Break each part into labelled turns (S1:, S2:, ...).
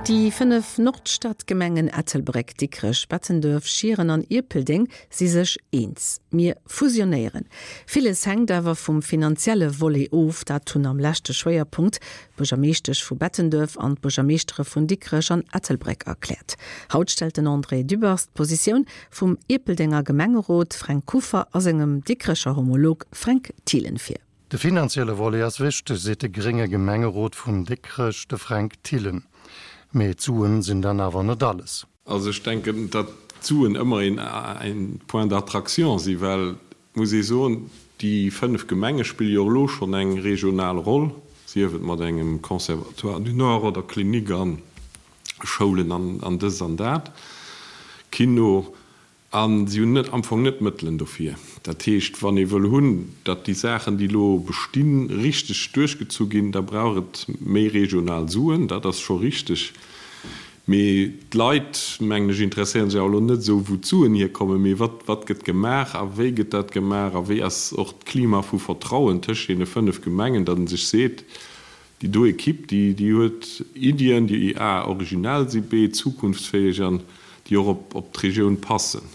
S1: Déi 5 Nordstadgemengen Ettelbréck, Dikrech, Bettenduerf, Schieren an Ierpeldeng si sech eens, Mir fusionéieren. Villes hänkt awer vum finanzielle Volet of. Dat hunn am leschte Schwéierpunkt d'Buergermeeschtesch vu Bettenduerf an d'Buergermeeschtere vun Dikrech an Ettelbréck erkläert. Haut stellt den André Dübbers d'Positioun vum Ierpeldenger Gemengerot Fränk Kuffer a sengem Dikrecher Homolog Fränk Thielen vir.
S2: De finanzielle Volet ass wichteg, seet de grénge Gemengerot vun Dikrech, de Fränk Thielen. Mee d'Suen sinn dann awer net alles.
S3: Also ech denken, datt d'Suen ëmmer een Point d'attraction si well, muss ee soen, déi 5 Gemenge spille jo och elo schonn eng regional Roll, sief et mat engem Conservatoire du Nord oder Klinik a Schoulen an dëst an dat, Kino. A si hunn net am Fong net d'Mëttelen dofir. Dat heescht, wann ee wëll hunn, datt déi Saachen, déi elo bestinn, richteg duerchgezu ginn, da brauch et méi regional Suen. Dat ass scho richteg. Mee d'Leit, mengen ech, interesséiere sech awer elo net esou, wou d'Suen hierkommen, mee wat, wat gëtt gemaach a wéi gëtt dat gemaach a wéi ass och d'Klima vu Vertrauen tëscht deene 5 Gemengen, datt ee sech seet, Déi do Equipe, déi, déi huet Iddien, déi a originell si, b zukunftsfäeg an déi och op, op d'Regioun passen.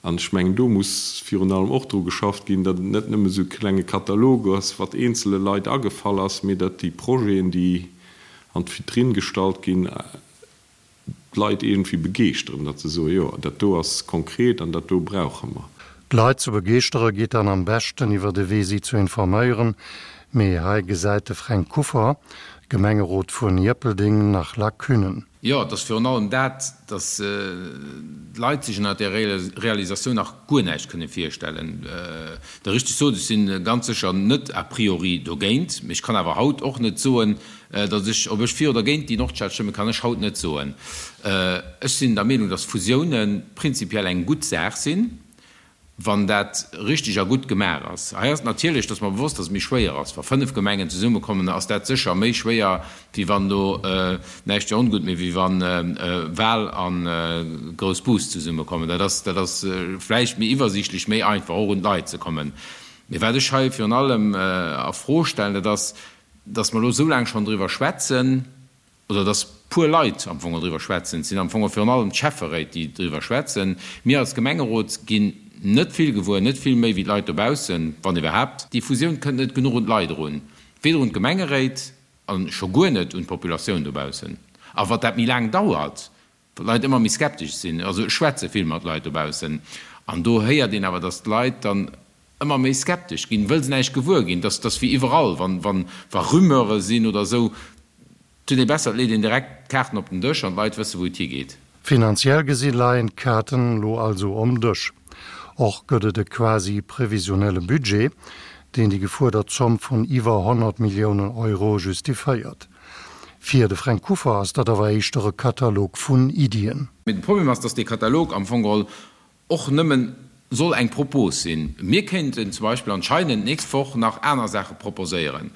S3: An ech mengen, do muss virun allem och dru geschafft ginn, datt et net nëmme esou e klenge Katalog ass, wat eenzele Leit agefall ass, mee datt déi Projeten, déi an d'Vitrinn gestallt ginn, d'Leit iergendwéi begeeschteren, datt se soen, jo, dat do ass konkret an dat do brauche mer.
S2: D'Leit ze begeeschtere geet dann am beschten iwwer de Wee si ze informéieren, mee hei gesäit de Fränk Kuffer, Gemengerot vun Ierpeldeng, nach Lacunen.
S4: Jo, et ass virun allem dat, datt d'Leit sech ënner där Realisatioun nach guer näischt kënne virstellen. Der richteg sot, ech si ganz sécher net a priori dogéint, mee ech kann awer haut och net soen, Datt ech, ob ech fir oder géint déi Nordstad stëmmen, kann ech haut net soen. Ech sinn der Meenung, datt Fusiounen prinzipiell eng gutt Saach sinn, wann dat richteg a gutt gemaach ass. Hei ass et natierlech, et ass mer bewosst, datt et méi schwéier ass. Wa 5 Gemengen zesummekommen, ass dat sécher méi schwéier, wéi wann elo, näischt fir ongutt, mee wéi wa Wal a Groussbus zesummekommen. Dat ass, dat ass vläicht méi iwwersiichtlech, méi einfach och un d'Leit ze kommen. Mee wat ech hei virun allem a Fro stellen, dat ass, dass mer elo esou laang schonn driwwer schwätzen, oder dass puer Leit am Fong driwwer schwätzen, et sinn am Fong virun allem d'Schäfferéit, déi driwwer schwätzen, mir als Gemengerot ginn net vill gewuer, net vill méi wéi d'Leit dobaussen, wann iwwerhaapt. Déi Fusioun kënnt net genuch un d'Leit erun, weder un d'Gemengeréit a scho guer net un d'Populatioun dobaussen. A wat dat méi laang dauert, wat d'Leit ëmmer méi skeptesch sinn. Also ech schwätze vill mat Leit dobaussen an do héiert een awer, dass d'Leit dann ëmmer méi skeptesch ginn, wëll se näischt gewuer ginn. Dass dass wéi iwwerall, wann wann wa Rumeure sinn oder esou, et huet ee besser, et leet een direkt d'Kaarten op den Dësch an d'Leit wësse wou et higeet.
S2: Finanziell gesi leien d'Kaarten elo also om Dësch. Och gëtt et e quasi previsionelle Budget, deen déi gefuerdert Zomm vun iwwer 100 Milliounen Euro justiféiert. Fir de Fränk Kuffer ass dat awer éischter e Katalog vun Iddien.
S4: Mee de Problem ass, dass dee Katalog am Fong geholl och nëmmen soll eng Propos sinn. Mir kéinten zum Beispill anscheinend d'nächst Woch nach aner Saache proposéieren.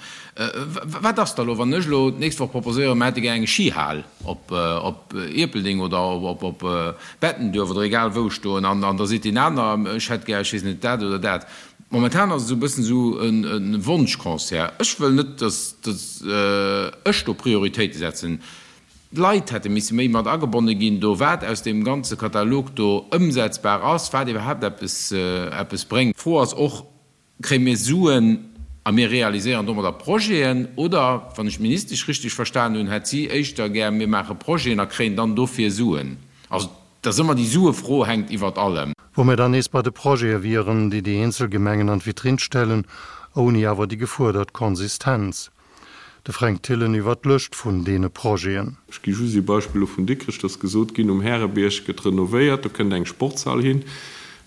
S4: Wat ass da elo, wann ech elo d'nächst Woch proposéieren, mir hätte gär eng Skihal op Ierpeldeng oder op Bettenduerf oder egal wou stoen, an da seet deen aner, ech hätt gär, ech weess net, dat oder dat. Momentan ass et esou e bëssen esou e Wonschconcert. Ech wëll net, datt ech do Prioritéite setzen. D'Leit hätte misse méi mat agebonne ginn do, wat aus deem ganze Katalog do ëmsetzbar ass, wat iwwerhaapt eppes eppes bréngt. D'Fro ass och, Kréie mir Suen a mir realiséieren domadder Projeten? Oder, wann ech d'Ministesch richteg verstan hunn, hätt si éischter gär, mir maache Projeten a kréien dann dofir Suen. Also Et ass ëmmer déi Suefro hänkt iwwert allem.
S2: Wou mir dann nees bei de Projete wieren, déi déi eenzel Gemengen an d'Vitrinn stellen, ouni awer déi gefuerdert Konsistenz. De Fränk Thillen iwwer d'Lëscht vun deene Projeten.
S3: Ech gi just ee Beispill elo vun Dikrech, Et ass gesot ginn, um Härebierg gëtt renovéiert, do kënnt eng Sportshal hin.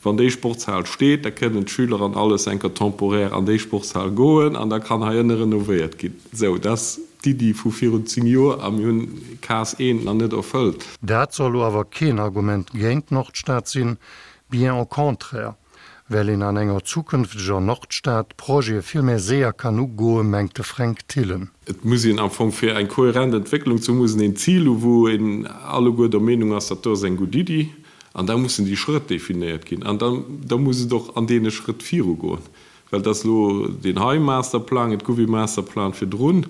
S3: Wann déi Sportshal steet, da kënnen d'Schüler an alles enker temporaire an déi Sportshal goen an da kann hei ënne renovéiert ginn. Sou, dat ass d'Iddi vu virun 10 Joer a mir hunn Case eent nach net erfëllt.
S2: Dat soll lo awer keen Argument géint d'Nordstad sinn, bien au contraire, well een an enger zukünfteger Nordstad d'Projete vill méi séier kann ugoen, mengt de Fränk Thillen.
S3: Et muss een am Fong, fir eng kohärent Entwécklung ze hunn, muss een een Zil hu wou een alleguer der Meenung ass, dat do ass eng gutt Iddi. An da mussen déi Schrëtt definéiert ginn. An da, da muss et och an deene Schrëtt virugoen. Well et ass elo deen hei Masterplang, et gouf ee Masterplan virdrun.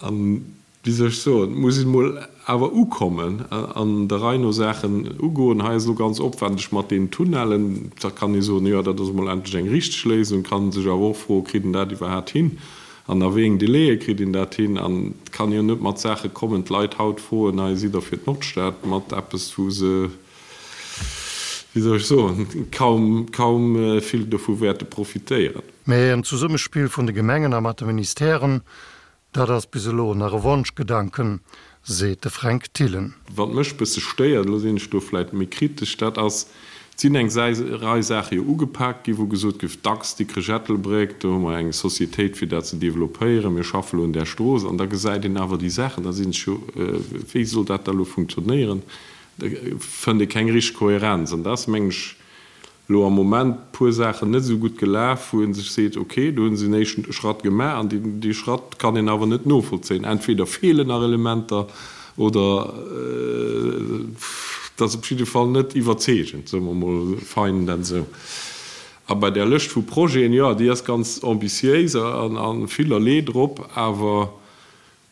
S3: An. Wéi soll ech soen, et muss een emol awer ukommen an der Rei no Saachen ugoen. Hei ass elo ganz opwendeg mat deenen Tunnellen. Da kann ee soen, jo, dat ass emol endlech eng richteg Léisung. Kann ee sech awer och froen, kritt een dat iwwerhaapt hin an a wéi eng Délaië kritt een dat hin? An et kann jo net mat Saache kommen, d'Leit haut froen, hei sidd Der fir d'Nordstad, mat eppes, wou se, wéi soll ech soen, kaum, kaum vill dovu wäerte profitéieren.
S2: Mä en Zesummespill vun de Gemengen a mat de Ministèren, Dat ass bis elo nach e Wonschgedanken, seet de Fränk Thillen.
S3: Wat mech bësse stéiert, elo sinn ech do vläit méi kritesch, dat ass, et sinn eng Rei Saache jo ugepaakt ginn, wou gesot gouf, dacks Dikrech-Ettelbréck, do hu mer eng Societéit fir dat ze developpéieren, mir schaffe lo un där Strooss. An da gesäit een awer déi Saachen, da sinn ech jo, wéi soll dat da lo funktionéieren? Da fënnt ee keng richteg Kohärenz. An dat ass, mengen ech, elo am Moment puer Saachen net esou gutt gelaf, wou ee sech seet, ok, do hu se en éischten Schratt gemaach an dee Schratt kann een awer net novollzéien. Entweder feelen nach Elementer oder et ass op jidde Fall net iwwerzeegend, soe mer emol fein dat esou. A bei där Lëscht vu Projeten, jo, déi ass ganz ambitiéis a villerlee drop, awer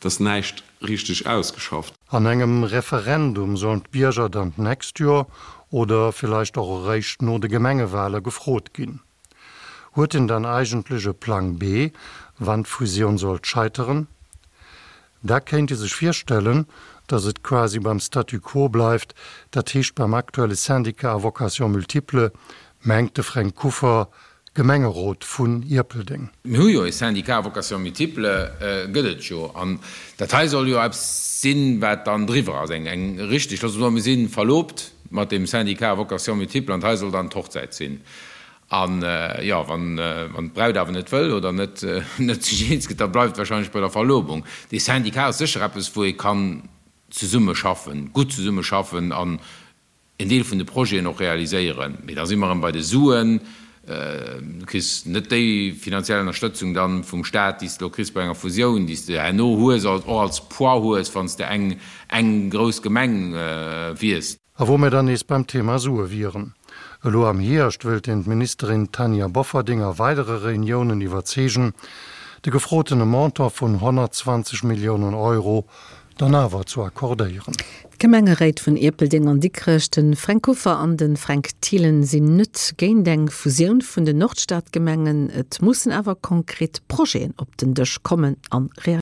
S3: Et ass näischt richteg ausgeschafft.
S2: An engem Referendum sollen d'Bierger dann d'nächst Joer oder villeicht och eréischt no de Gemengewahle gefrot ginn. Huet een dann eigentlech e Plang B, wann d'Fusioun sollt scheiteren? Da kéint ee sech virstellen, datt et quasi beim Statu quo bleift, dat heescht beim aktuelle Syndicat à vocation multiple, mengt de Fränk Kuffer, Gemengerot vun Ierpeldeng.
S4: Mir hu jo e Syndicat à vocation multiple, gëtt et jo. An dat hei soll jo eppes sinn, wat dann driwwer ass, eng, eng richtig, loosse mer soen, mir si verlobt mat deem Syndicat à vocation multiple an hei soll dann d'Hochzäit sinn. An, jo, wann, wann d'Braut awer net wëll oder net, net sech eens gëtt, da bleift et wahrscheinlech bei der Verlobung. Dee Syndicat ass sécher eppes, wou ee kann zesummeschaffen, gutt zesummeschaffen an en Deel vun de Projeten och realiséieren. Mee da si mer erëm bei de Suen. Du kriss net déi finanziell Ënnerstëtzung dann vum Staat, déi s de elo kriss bei enger Fusioun, déi s de herno hues, och als Poids hues, wann s de eng eng grouss Gemeng wiers.
S2: A wou mir dann nees beim Thema Sue wieren. Elo am Hierscht wëllt een d'Ministerin Tanja Bofferding a weidere Reuniounen iwwerzeegen, de gefrotene Montant vun 120 Milliounen Euro dann awer zu accordéieren.
S1: D'Gemengeréit vun Ierpeldeng an Dikrech, de Fränk Kuffer an de Fränk Thielen, sinn net géint eng Fusioun vun den Nordstadgemengen. Et mussen awer konkret Projeten op den Dësch kommen an realiséiert.